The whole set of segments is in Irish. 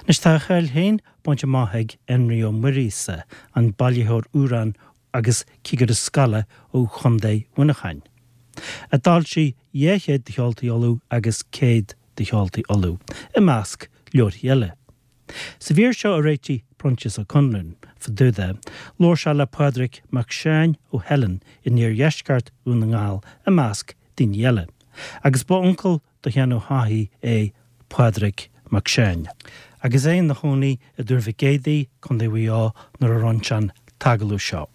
Anois tá a cháil féin bainte amach ag Enrí Ó Muiríosa, an bailitheoir amhrán agus cigire scoile ó Chontae Mhuineacháin, a d'fhoilsigh 200 de Cheoltaí Uladh agus 100 de Cheoltaí Uladh, i measc leabharthaí eile. Sa mhír seo a réitigh Proinsias Ó Conluain fá dtaobh de, labhair sé le Pádraig Mac Seáin ó Theileann in iardheisceart Dhún na nGall, i measc daoine eile, agus ba uncail do Sheán Ó hFathaigh é Pádraig Mac Seáin. Agus é ina chónaí i dTuar Mhic Éadaigh, Contae Mhaigh Eo, nuair a rinne sé an t-agallamh seo.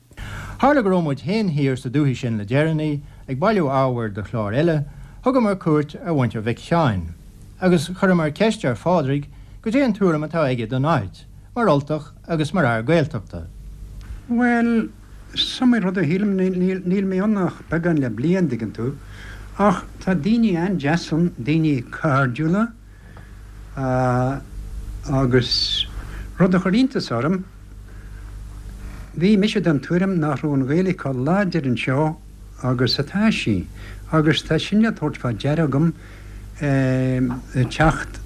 Tharla go raibh muid féin thiar sa dúthaigh sin le deireanaí, ag bailiú ábhair do chlár eile, thugamar cuairt ar mhuintir Mhic Sheáin, agus chuireamar ceist ar Phádraig goidé an tuairim atá aige don áit, mar Ultach agus mar fhear Gaeltachta. Bhuel, is iomaí rud a shílim, níl mé ann ach beagán le bliain, dtuigeann tú, ach tá daoine an-deas ann, daoine cairdiúla, agus rud a chuir iontas orm, bhí mise den tuairim nach raibh an Ghaeilge chomh láidir anseo agus atá sí, agus tá sin le tabhairt fá deara agam ag teacht,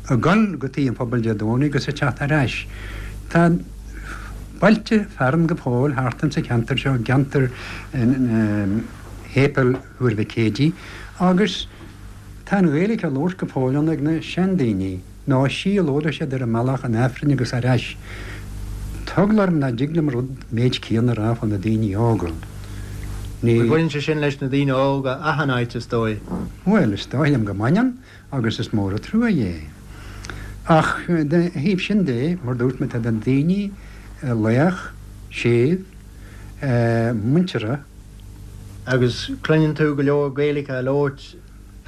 ag dul go Tigh an Phobail Dé Domhnaigh agus ag teacht ar ais. Tá bailte fearainn go fóill thart insa cheantar seo, i gceantar Shéipéal Thuar Mhic Éadaigh, agus tá an Ghaeilge á labhairt go fóill ann ag na seandaoine, nó is í a labhraíonn siad ar a mbealach chun Aifrinn agus ar ais. Tá eagla orm nach dtig liom rud méid céanna a rá fá na daoine óga. Ní. Bhuel, baineann sé sin leis na daoine óga achan áit, is dóigh. Bhuel, is dóigh liom go mbaineann, agus is mór an trua é. Ach dá thaobh sin de, mar dúirt mé, tá na daoine lách, séimh, muinteartha. Agus cluineann tú go leor Gaeilge á labhairt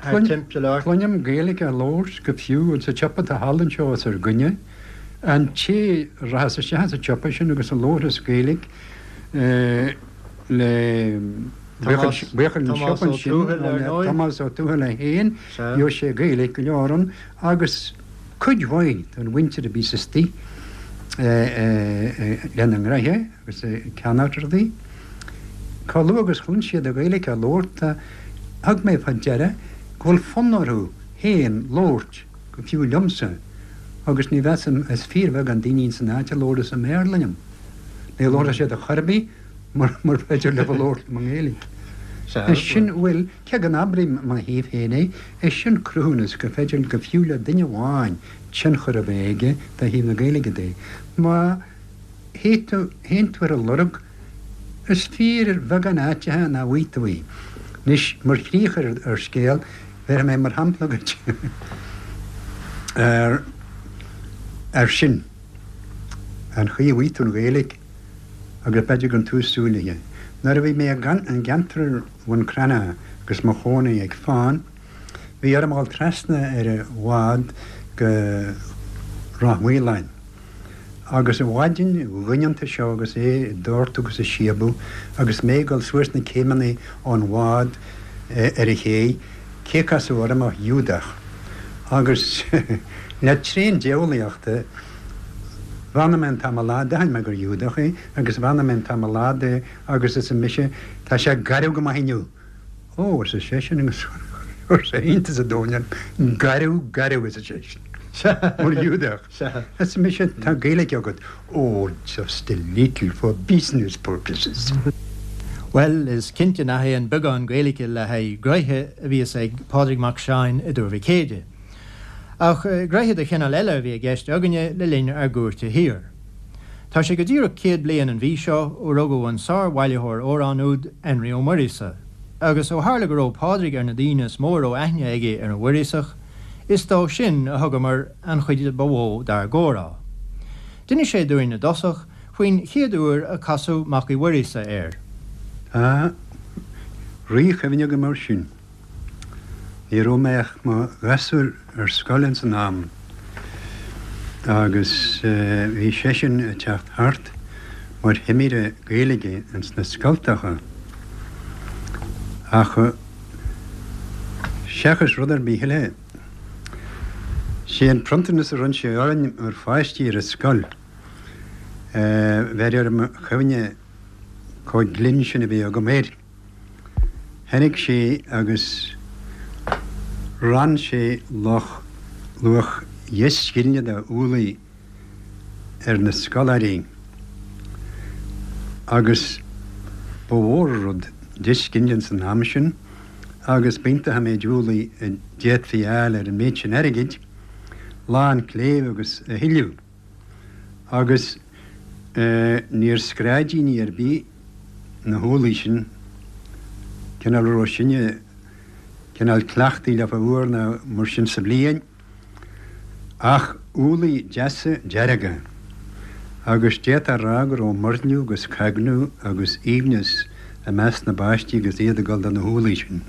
thart timpeall ort? Cluinim Gaeilge á labhairt go fiú insa tsiopa atá thall anseo os ár gcoinne. An té a rachas isteach sa tsiopa sin agus a labharfas Gaeilge le buachaill an tsiopa ansin, le Tomás Ó Tuathail é féin, gheobhaidh sé Gaeilge go leor ann agus cuid mhaith den mhuintir a bhíos istigh lena ngraithe. agus ag ceannacht rudaí. Chomh luath agus chluin siad an Ghaeilge á labhairt, thug mé fá deara go bhfuil fonn orthu féin labhairt, go fiú liomsa, agus ní mheasaim, is fíorbheagán daoine ins an áit a labhras i mBéarla liom. Ní labharfaidh siad ar chor ar bith mura féidir leo labhairt liom i nGaeilge. Is sin, bhuel, cé go n-abraím i mo thaobh féin é, is sin cruthúnas gur féidir go fiú le duine amháin tionchar a bheith aige do thaobh na Gaeilge de. Má. théann tú ar a lorg. Is fíorbheagán áiteacha nach bhfaighidh tú í. Anois, mar chríoch ar an scéal, bhéarfaidh mé mar shampla dhuit ar ar sin, an chaoi a bhfaighidh tú an Ghaeilge agus b'fhéidir gan tú súil léi. Nuair a bhí mé i gceantar Bhun Cranncha agus mo chónaí ag Fán, bhí orm a dhul trasna ar an bhád go Ráth Maoláin. Agus an mhaidin dhoineanta seo agus é ag doirteadh agus ag síobadh agus mé ag dul suas na céimeanna ón bhád ar an ché, cé a casadh orm ach Giúdach. Agus le tréan diabhlaíochta, bheannaigh mé an t-am ar fad, d'aithin mé gur Ghiúdach é, agus bheannaigh mé an t-am ar fad é agus arsa mise, tá sé garbh go maith inniu! Ó, arsa seisean agus chuir sé iontas an domhain orm, garbh, garbh, arsa seisean, mar Ghiúdach. Arsa mise, tá Gaeilge agat. Ó, just a little for business purposes. Bhuel, is cinnte nach é an beagán Gaeilge le haghaidh gnoithe a bhíos ag Pádraig Mac Seáin i dTuar Mhic Éadaigh. Ach gnoithe de chineál eile a bhí i gceist againne le linn ár gcuairte thiar. Tá sé go díreach 100 bliain an mhí seo ó rugadh an sár-bhailitheoir amhrán úd, Enrí Ó Muiríosa, agus ó tharla go raibh Pádraig ar na daoine is mó a raibh aithne aige ar an Mhuiríosach, is dó sin a thugamar an chuid ba mhó dár gcomhrá. D'inis sé dúinn i dtosach faoin chéad uair a casadh Mac Uí Mhuiríosa air. Tá ríchuimhne agam air sin. Ní raibh mé ach mo ghasúr ar scoil ins an am agus bhí seisean ag teacht thart mar thimire Gaeilge ins na scoltacha ach seachas rud ar bith eile, sé an pronntanas a bhronn sé orainn mar pháistí ar an scoil, bheir ar mo chuimhne chomh glinn sin a bhí agam air. Tháinig sé agus rann sé luach luach. dheich scilne de úllaí ar na scoláirí agus ba mhór an rud deich scilne ins an am sin agus b'iontach an méid úllaí a d'fhéadfaí a fháil ar an méid sin airgid, lán cléibh agus a thuilleadh. Agus níor scráidíní ar bith na húllaí sin, cineál a raibh sinne cineál cleachtaithe leofa uair nó mar sin sa bhliain. Ach úllaí deasa dearga, agus d'fhéadfá a rá go raibh muirniú agus cagnú agus aoibhneas i measc na bpáistí agus iad ag dul do na húllaí sin.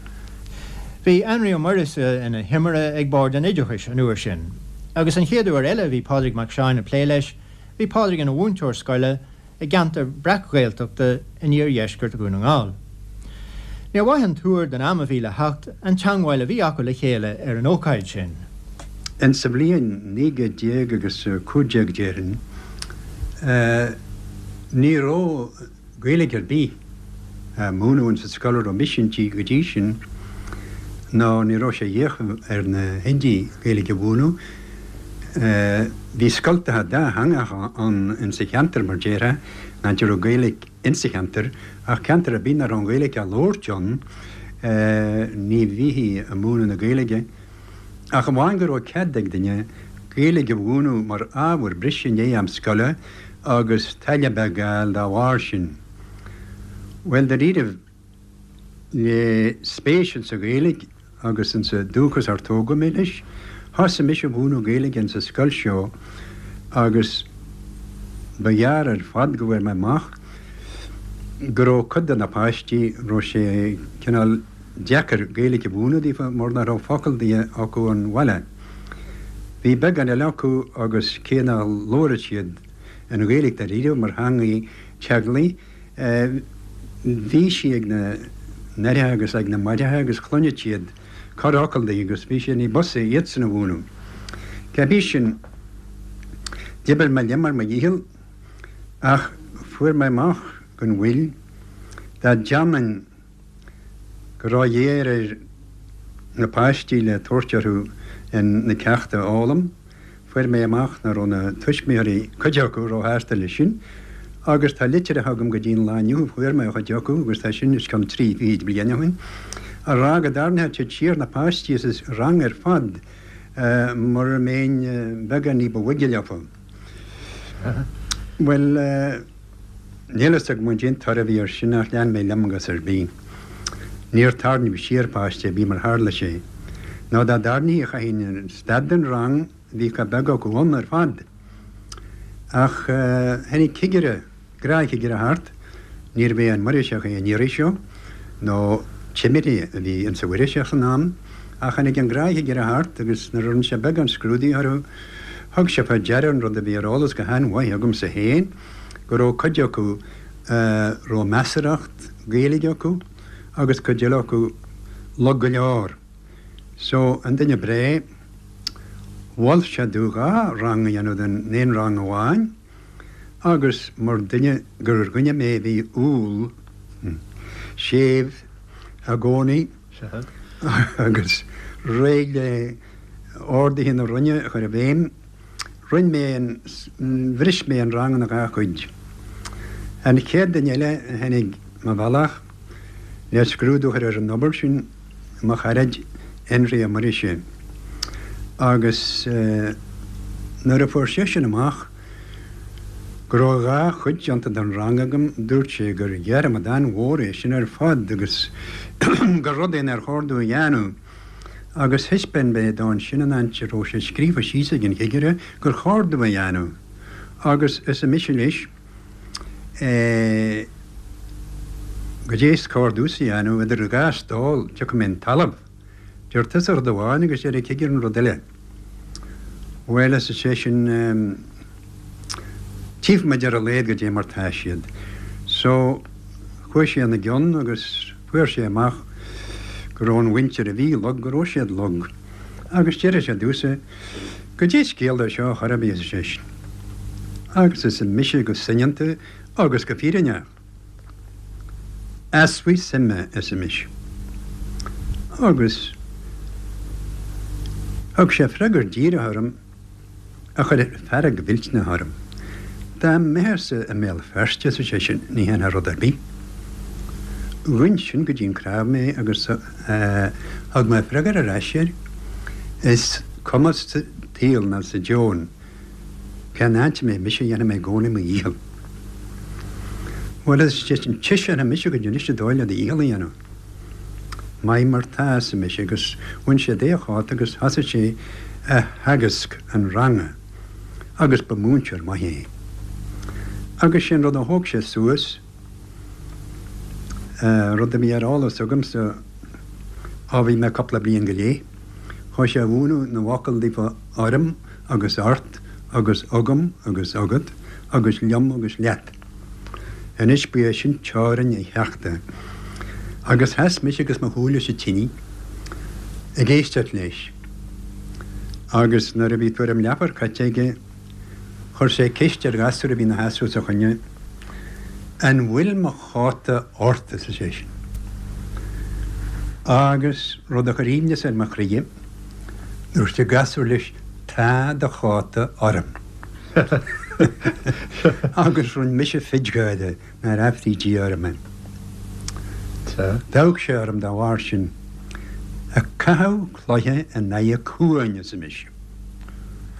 Bhí Anraí Ó Muiríosa ina thimire ag Bord an Oideachais an uair sin, agus an chéad uair eile a bhí Pádraig Mac Seáin ag plé leis, bhí Pádraig ina mhúinteoir scoile i gceantar breac-Ghaeltachta in iardheisceart Dhún na nGall. Níor mhaith an tuar don am a bhí le theacht an teangmháil a bhí acu le chéile ar an ócáid sin. Insa bhliain 19 gcéad agus 15 déarfainn, ní raibh Gaeilge ar bith á múineadh insa scoil a raibh mise inti go dtí sin, nó ní raibh sé d'fhiacha ar na hoidí Gaeilge a mhúineadh. Bhí scoltacha dátheangacha ann insa cheantar, mar déarfá, an áit a raibh Gaeilge insa cheantar, ach ceantar ar bith nach raibh an Ghaeilge á labhairt ann, ní bhíthí ag múineadh na Gaeilge, ach amháin go raibh cead ag duine Gaeilge a mhúineadh mar ábhar breise i ndiaidh am scoile agus táille beag a fháil dá bharr sin. Bhuel, dáiríribh, le spéis insa Ghaeilge agus insa dúchas ar tógadh mé leis, thosaigh mise a mhúineadh Gaeilge insa scoil seo agus ba ghearr ar fad go bhfuair mé amach go raibh cuid de na páistí, raibh sé cineál deacair Gaeilge a mhúineadh daofa mar nach raibh focal di acu ón bhaile. Bhí beagán eile acu agus cé nach labhradh siad an Ghaeilge dáiríre mar theangaidh teaghlaigh, Bhí sí ag na n-aithreacha agus ag na máithreacha agus chluineadh siad corrfhocal di agus bhí sé ní b'fhusa iadsan a mhúineadh. Cébí sin, d'oibir mé liom ar mo dhícheall ach fuair mé amach gan mhoill dá dteannfainn go ró-ghéar ar na páistí le tabhairt orthu na ceachta a fhoghlaim. Fuair mé amach nach raibh na tuismitheoirí, cuid acu, róshásta leis sin agus tá litreacha agam go dtí an lá inniu a fuair mé ó chuid acu, agus tá sin os cionn trí fichid bliain ó shin, a rá go dtarraingeodh siad siar na páistí as an rang ar fad mura mbeinn beagán ní ba bhoige leofa. Bhuel, níl fhios agam cén toradh a bhí air sin ach lean mé liom agus ar bith. Níor tarraingíodh siar páiste ar bith mar tharla sé. Nó dá dtarraingtí chaithfinn stad den rang, bhí chomh beag acu ann ar fad. Ach tháinig cigire, gnáthchigire thart, níorbh é an Muiríseach é an iarraidh seo, nó timire a bhí insa Mhuiríseach san am, ach tháinig an gnáthchigire thart agus nuair a rinne sé beagán scrúdaithe orthu, thug sé fá deara an rud a bhí ar eolas go han-mhaith agamsa féin, go raibh cuid acu a raibh measarthacht Gaeilge acu agus cuid eile acu lag go leor. So, an duine breá, mhol sé domh dhá rang a dhéanamh den aon rang amháin agus mar duine gur dhuine mé a bhí umhal, séimh i gcónaí agus réidh le orduithe na Roinne a chur i bhfeidhm, Rinn mé an, bhris mé an rang ina dhá chuid. An chéad duine eile a tháinig mo bhealach le scrúdú a chur ar an obair sin, mo charaid Énrí Ó Muiríosa. Agus nuair a fuair seisean amach go raibh dhá chuid déanta den rang agam, dúirt sé gur dhearmad an-mhór é sin ar fad agus gur rud é nár chóir domh a dhéanamh. Agus thaispeáin mé dó ansin an áit a raibh sé scríofa síos ag an chigire gur chóir domh a dhéanamh. Agus arsa mise leis, eh, goidé is cóir domhsa a dhéanamh, idir dhá stól, tiocfaidh mé 'on talamh. Deir tusa rud amháin agus deir an cigire an rud eile. Bhuel, arsa seisean, eh, tchífidh muid ar a laghad goidé mar tá siad. So, chuaigh sé ina gcionn agus fuair sé amach go raibh an mhuintir a bhí lag, go raibh siad lag. Agus deir sé domhsa, Goidé scéal é seo a chor ar bith, arsa seisean. Agus arsa mise go soineanta agus go fírinneach. Easpa suime, arsa mise. Agus thug sé freagra díreach orm. A chuir fearg mhillteanach orm. Dá mbeitheása i mBéal Feirste, arsa seisean, ní dhéanfá rud ar bith. Ghoin sin go dtí an cnámh mé agus thug mé freagra ar ais air, Is cuma sa tsaol ná sa deoin cén áit a mbeidh mise, dhéanfaidh mé i gcónaí mo dhícheall. Bhuel, arsa seisean, tchífidh mise goidé anois an dóigh le do dhícheall a dhéanamh. Maith mar tá, arsa mise, agus bhain sé de a chóta agus thosaigh sé a theagasc an ranga agus ba mhúinteoir maith é. Agus sé an rud a thóg sé suas, rud a bhí ar eolas agamsa ó bhí mé cúpla bliain go leith, chuaigh sé a mhúineadh na bhfocal daofa orm agus ort agus agam agus agat agus liom agus leat. Anois ba é sin teorainn a cheachta. Agus sheas mise agus mo shúile sa tine ag éisteacht leis. Agus nuair a bhí tuairim leathuair caite aige, chuir sé ceist ar ghasúr a bhí ina sheasamh os a choinne, An bhfuil mo chóta ort? arsa seisean. Agus rud a chuir aoibhneas ar mo chroidhe, dúirt an gasúr leis, Tá do chóta orm. Agus rinn mise fidgáire nár aifrí Dia orm é. D'amharc sé orm dá bharr sin. Ag caitheamh cloiche in aghaidh cuain, arsa mise.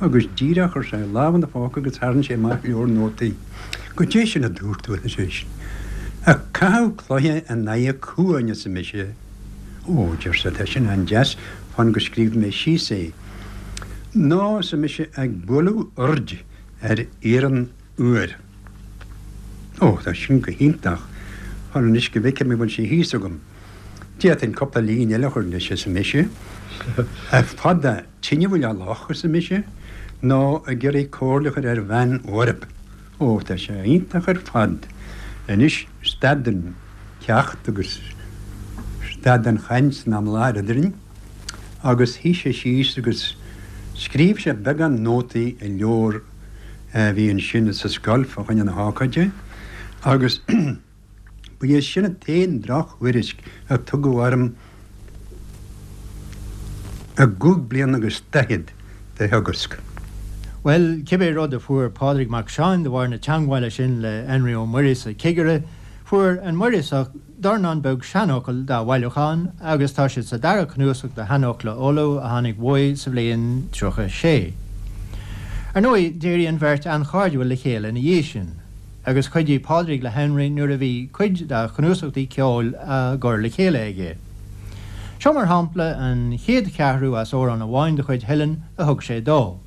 Agus díreach chuir sé a lámh ina phóca agus tharraing sé amach leabhar nótaí. Goidé sin a dúirt tú, arsa seisean. Ag caitheamh cloiche in aghaidh cuain, arsa mise. Ó, deir sé, tá sin an-deas, fan go scríobhfaidh mé síos é. Nó, arsa mise, ag bualadh oird ar iarann úr. Ó, tá sin go hiontach. Fan anois go bhfeicfidh mé an bhfuil sé thíos agam. D'fhéadfainn cúpla líne eile a chur leis, arsa mise. Fada tine bhuile loch, arsa mise, nó ag iarraidh comhairle a chur ar bhean bhorb. Ó, tá sé iontach ar fad. Anois, stad an ceacht agus stad an chaint san am i láthair eadrainn agus shuigh sé síos agus scríobh sé beagán nótaí i leabhar a bhí ansin sa scoil fá choinne na hócáide agus ba é sin an t-aon drochthuairisc a tugadh orm i gcúig bliana agus daichead de theagasc. Bhuel, cibé rud a fuair Pádraig Mac Seáin de bharr na teangmhála sin le Enrí Ó Muiríosa, cigire, fuair an Muiríosach dornán beag seanfhocal dá bhailiúchán agus tá siad sa dara cnuasach de Sheanfhocla Uladh a tháinig uaidh sa bhliain 36. Ar ndóigh, d'éirigh an bheirt an-chairdiúil le chéile ina dhiaidh sin. agus chuidigh Pádraig le Henry nuair a bhí cuid dá chnuasachtaí ceoil á gcur le chéile aige. Seo mar shampla an chéad cheathrú as amhrán amháin de chuid Helen a thug sé dó,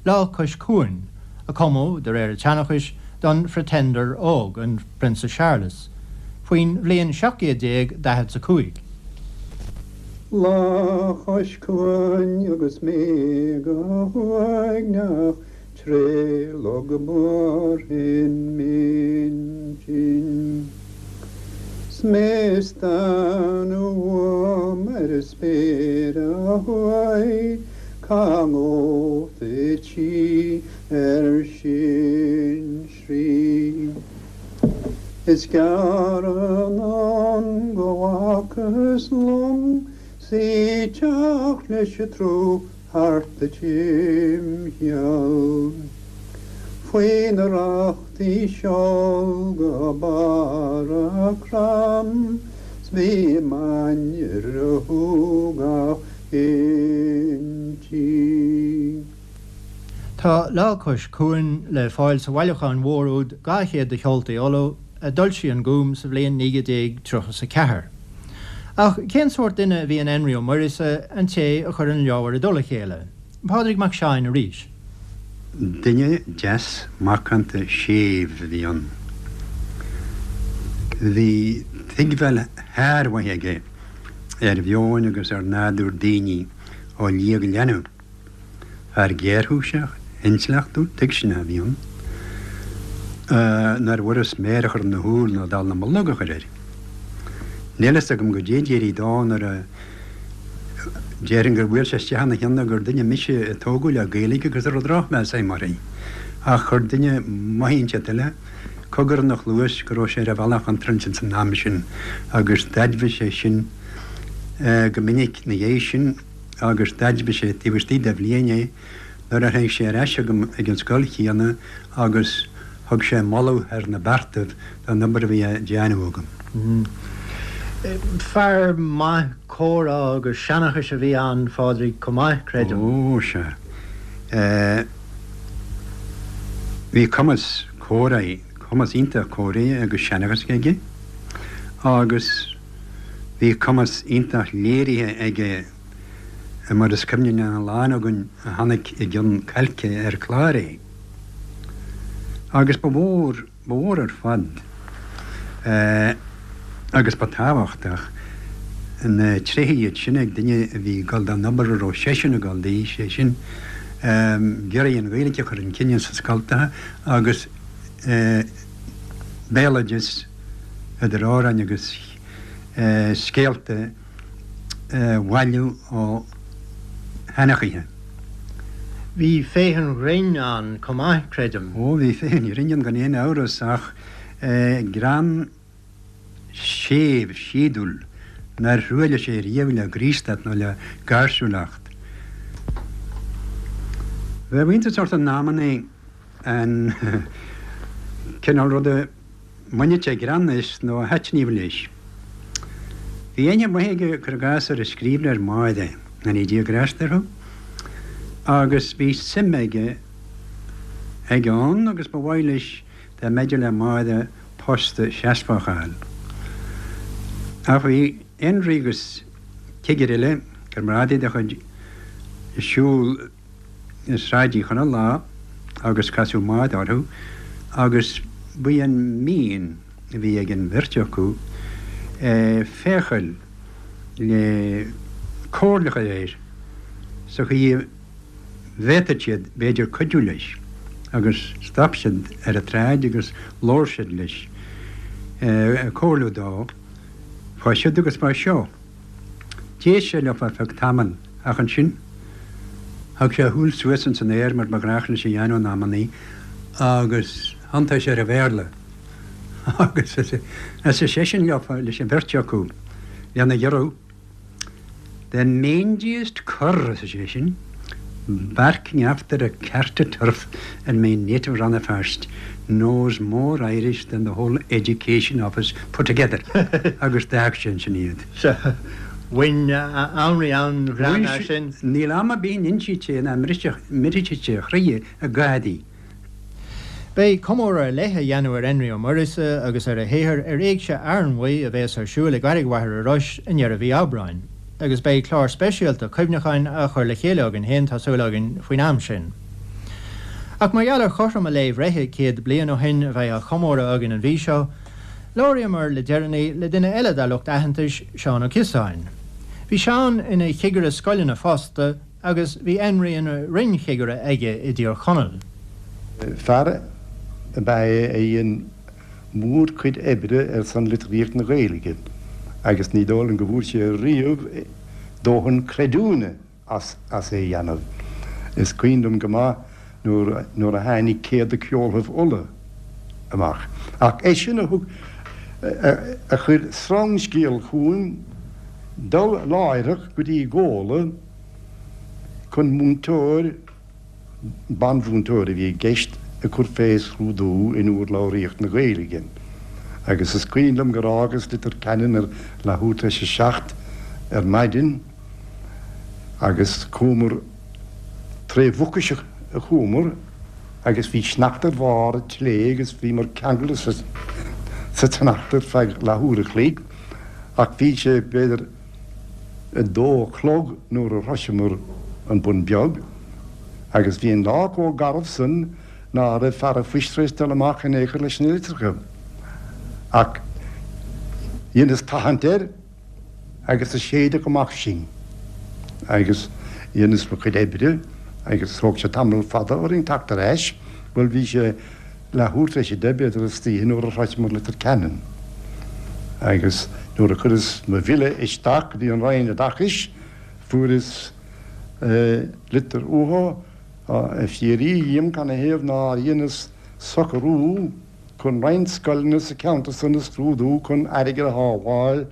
Lá Cois Cuain, a cumadh, de réir an tseanchais, don Phretender óg, an Prionsa Searlas, faoin bhliain 1745. Lá cois cuain agus mé go huaigneach Tré log Mhárthain m'intinn 'S mé ag stánadh uaim ar an spéir ó thuaidh Cá ngabhfad í ar sinsearaí Is gearr anonn go bhfacthas long 'S í ag teacht leis an tsruth thart a timcheall. Faoi na rachtaí seol go barr a crann 's bhí m'ainnir a shúgach inti. Tá Lá Cois Cuain le fáil sa bhailiúchán mhór úd 200 de Cheoltaí Uladh a d'fhoilsigh an Gúm sa bhliain 1934. Ach cén sórt duine a bhí in Enrí Ó Muiríosa, an té a chuir an leabhar i dtoll a chéile? Pádraig Mac Seáin arís. Duine deas macánta séimh a bhí ann. Bhí tuigbheáil shármhaith aige ar mheon agus ar nádúr daoine ó liath go leanbh. Fear géarchúiseach, intleachtúil, tuigseanach a bhí ann, nár bhfuras méar a chur ina shúil ná dallamullóg a chur air. Níl fhios agam goidé a d'éirigh dó nuair a déarfainn gur bhuail sé isteach ina cheann gur duine mise a tógadh le Gaeilge agus a raibh drochmheas agam uirthi. Ach chuir duine maith inteacht eile cogar ina chluas go raibh sé ar an bhealach contráilte ins an am sin agus d'admhaigh sé sin go minic ina dhiaidh sin. agus d'admhaigh sé taobh istigh de bhliain é. Nuair a tháinig sé ar ais chugam ag an scoil chéanna agus thug sé moladh thar na beartaibh don obair a bhí á déanamh agam. Fear maith comhrá agus seanchais a bhí ann, Phádraig, chomh maith, creidim. Ó, sea. Bhí cumas comhrá, cumas iontach comhrá agus seanchais aige agus bhí cumas iontach léirithe aige mar is cuimhin lena lán againn a chonaic i gCionn Cailce ar clár é. Agus ba mhór, ba mhór ar fad agus ba tábhachtach na tréithe iad sin ag duine a bhí ag dul don obair a raibh seisean ag dul di, sé sin, ag iarraidh an Ghaeilge a chur chun cinn sna scoltacha agus béaloideas idir amhráin agus scéalta a bhailiú ó sheanchaithe. Bhí féith an ghrinn ann chomh maith, creidim. Ó, bhí féith an ghrinn ann gan aon amhras, ach greann séimh, síodúil, nár thruailligh sé riamh le graostacht nó le gáirsiúlacht. Bheadh iontas ort in amannaí an cineál ruda mbainfeadh sé greann as nó a thaitníodh leis. Bhí aithne mhaith aige, cuir i gcás, ar an scríbhneoir Máire, go ndéana Dia grásta uirthi, agus bhí suim aige aige ann agus ba mhaith leis dá mb'fhéidir le Máire post seasmhach a fháil. Ach bhí Énrí agus cigire eile, comrádaí dá chuid, ag siúl i Sráid Uí Chonaill lá agus casadh Máire orthu agus ba í an mian a bhí ag an bheirt acu féacháil le comhairle a chur air sa chaoi a bhféadfadh siad b'fhéidir cuidiú leis agus stop siad ar an tsráid agus labhair siad leis ag comhairliú dó fá siúd agus fá seo. D'éist sé leo ar feadh tamaill ach ansin thug sé a shúil suas ins an aer mar ba ghnách leis a dhéanamh in amannaí agus thiontaigh sé ar an Bhéarla agus arsa seisean leo, leis an bheirt acu, lena ghiorrú, The mangiest cur, arsa seisean, barking after a cart o' turf in my native Rann na Feirste knows more Irish than the whole Education Office put together agus d'fhág sé ansin iad. Sea, bhain Énrí an-ghreann as sin. Níl am ar bith a n-insíonn sé ná mbrisfidh sé a chroí i gcádaí. Beidh comóradh ar leith á dhéanamh ar Énrí Ó Muiríosa agus ar a shaothar ar Éigse Fhearnmhaí a bheas ar siúl i gCarraig Mhachaire Rois i ndeireadh mhí Aibreáin, agus beidh clár speisialta cuimhneacháin á chur le chéile againn féin, tá súil againn, faoin am sin. Ach mar gheall ar chothrom a lae bhreithe 100 bliain ó shin a bheith á chomóradh againn an mhí seo, labhraíomar le deireanaí le duine eile dár lucht aitheantais, Seán Ó Ciosáin. Bhí Seán ina chigire scoileanna fosta, agus bhí Énrí ina roinnchigire aige i dTír Chonaill. Fear ab ea é a dhein mórchuid oibre ar son litríocht na Gaeilge agus ní dóigh liom go bhfuair sé riamh dóthain creidiúna as as é a dhéanamh. Is cuimhin liom go maith nuair nuair a tháinig Céad de Ceolthaibh Uladh amach. Ach eisean a thug a chuir sreangscéal chugam dul láithreach go dtí Gabhla, chun múinteoir, banmhúinteoir a bhí i gceist, a chur fé scrúdú in urlabhraíocht na Gaeilge. Agus is cuimhin liom gur fhágas Leitir Ceanainn ar leathuair tar éis a 7 ar maidin agus chuamar tré Mhucais a chuamar agus bhí sneachta ar bharr an tslé agus bhíomar ceangailte sa tsneachta ar feadh leathuair a chloig ach bhí sé b'fhéidir 2 a chlog nuair a shroiseamar an Bun Beag, agus bhí an lá chomh garbh san ná raibh fear a' phoist tar éis dul amach in aon chor leis na litreacha. Ach dheineas tathant air agus do séideadh amach sinn agus dheineas mo chuid oibre agus thóg sé tamall fada orainn teacht ar ais, bhuel bhí sé leathuair tar éis 10 b'fhéidir istoíche nuair a shroicheamar Leitir Ceanainn agus nuair a chuireas mo bhille isteach go dtí an Roinn Oideachais fuaireas litir uathu ag fiafraí dhíom canathaobh nár dheineas socrú chun roinnt scoileanna sa cheantar san a scrúdú chun airgead a shábháil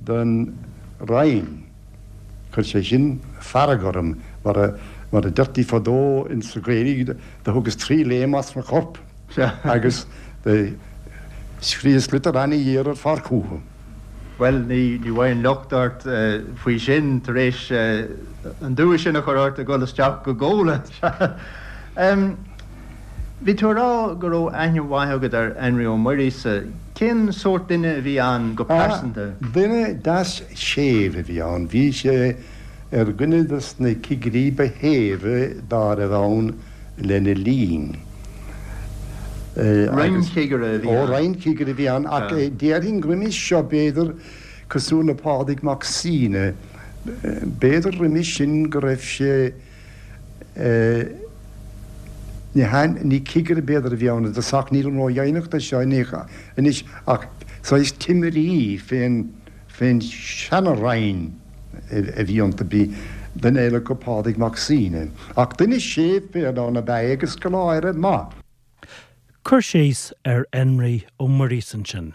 don Roinn. Chuir sé sin fearg orm mar a. Mar a deirtí fadó ins sa Ghaeilge, do thugas tri léim as mo chorp agus do scríos litir ana-ghéar ar fad chúthu. Bhuel, ní bhfaighinn locht ort faoi sin, tar éis an dua sin a chur ort a dhul isteach go Gabhla. Bhí tú a rá go raibh aithne mhaith agat ar Énrí Ó Muiríosa. Cén sórt duine a bhí ann go pearsanta? Duine deas séimh a bhí ann. Bhí sé ar dhuine de na cigirí ba shéimhe dá raibh ann lena linn. Roinnchigire a bhí ann. Ó, roinnchigire a bhí ann, ach déarfainn roimis seo, b'fhéidir, cosúil le Pádraig Mac Suibhne, b'fhéidir roimis sin go raibh sé, ní hea, ní cigire b'fhéidir a bhí ann i dtosach, nílim ródheimhneach de seo anois, ach saghas timirí fén. Fén seana-Roinn a bhí iontu bhí duine eile acu, Pádraig Mac Suibhne. Ach duine séimh fiáin ab ea é agus scoláire maith. Cur síos ar Énrí Ó Muiríosa ansin.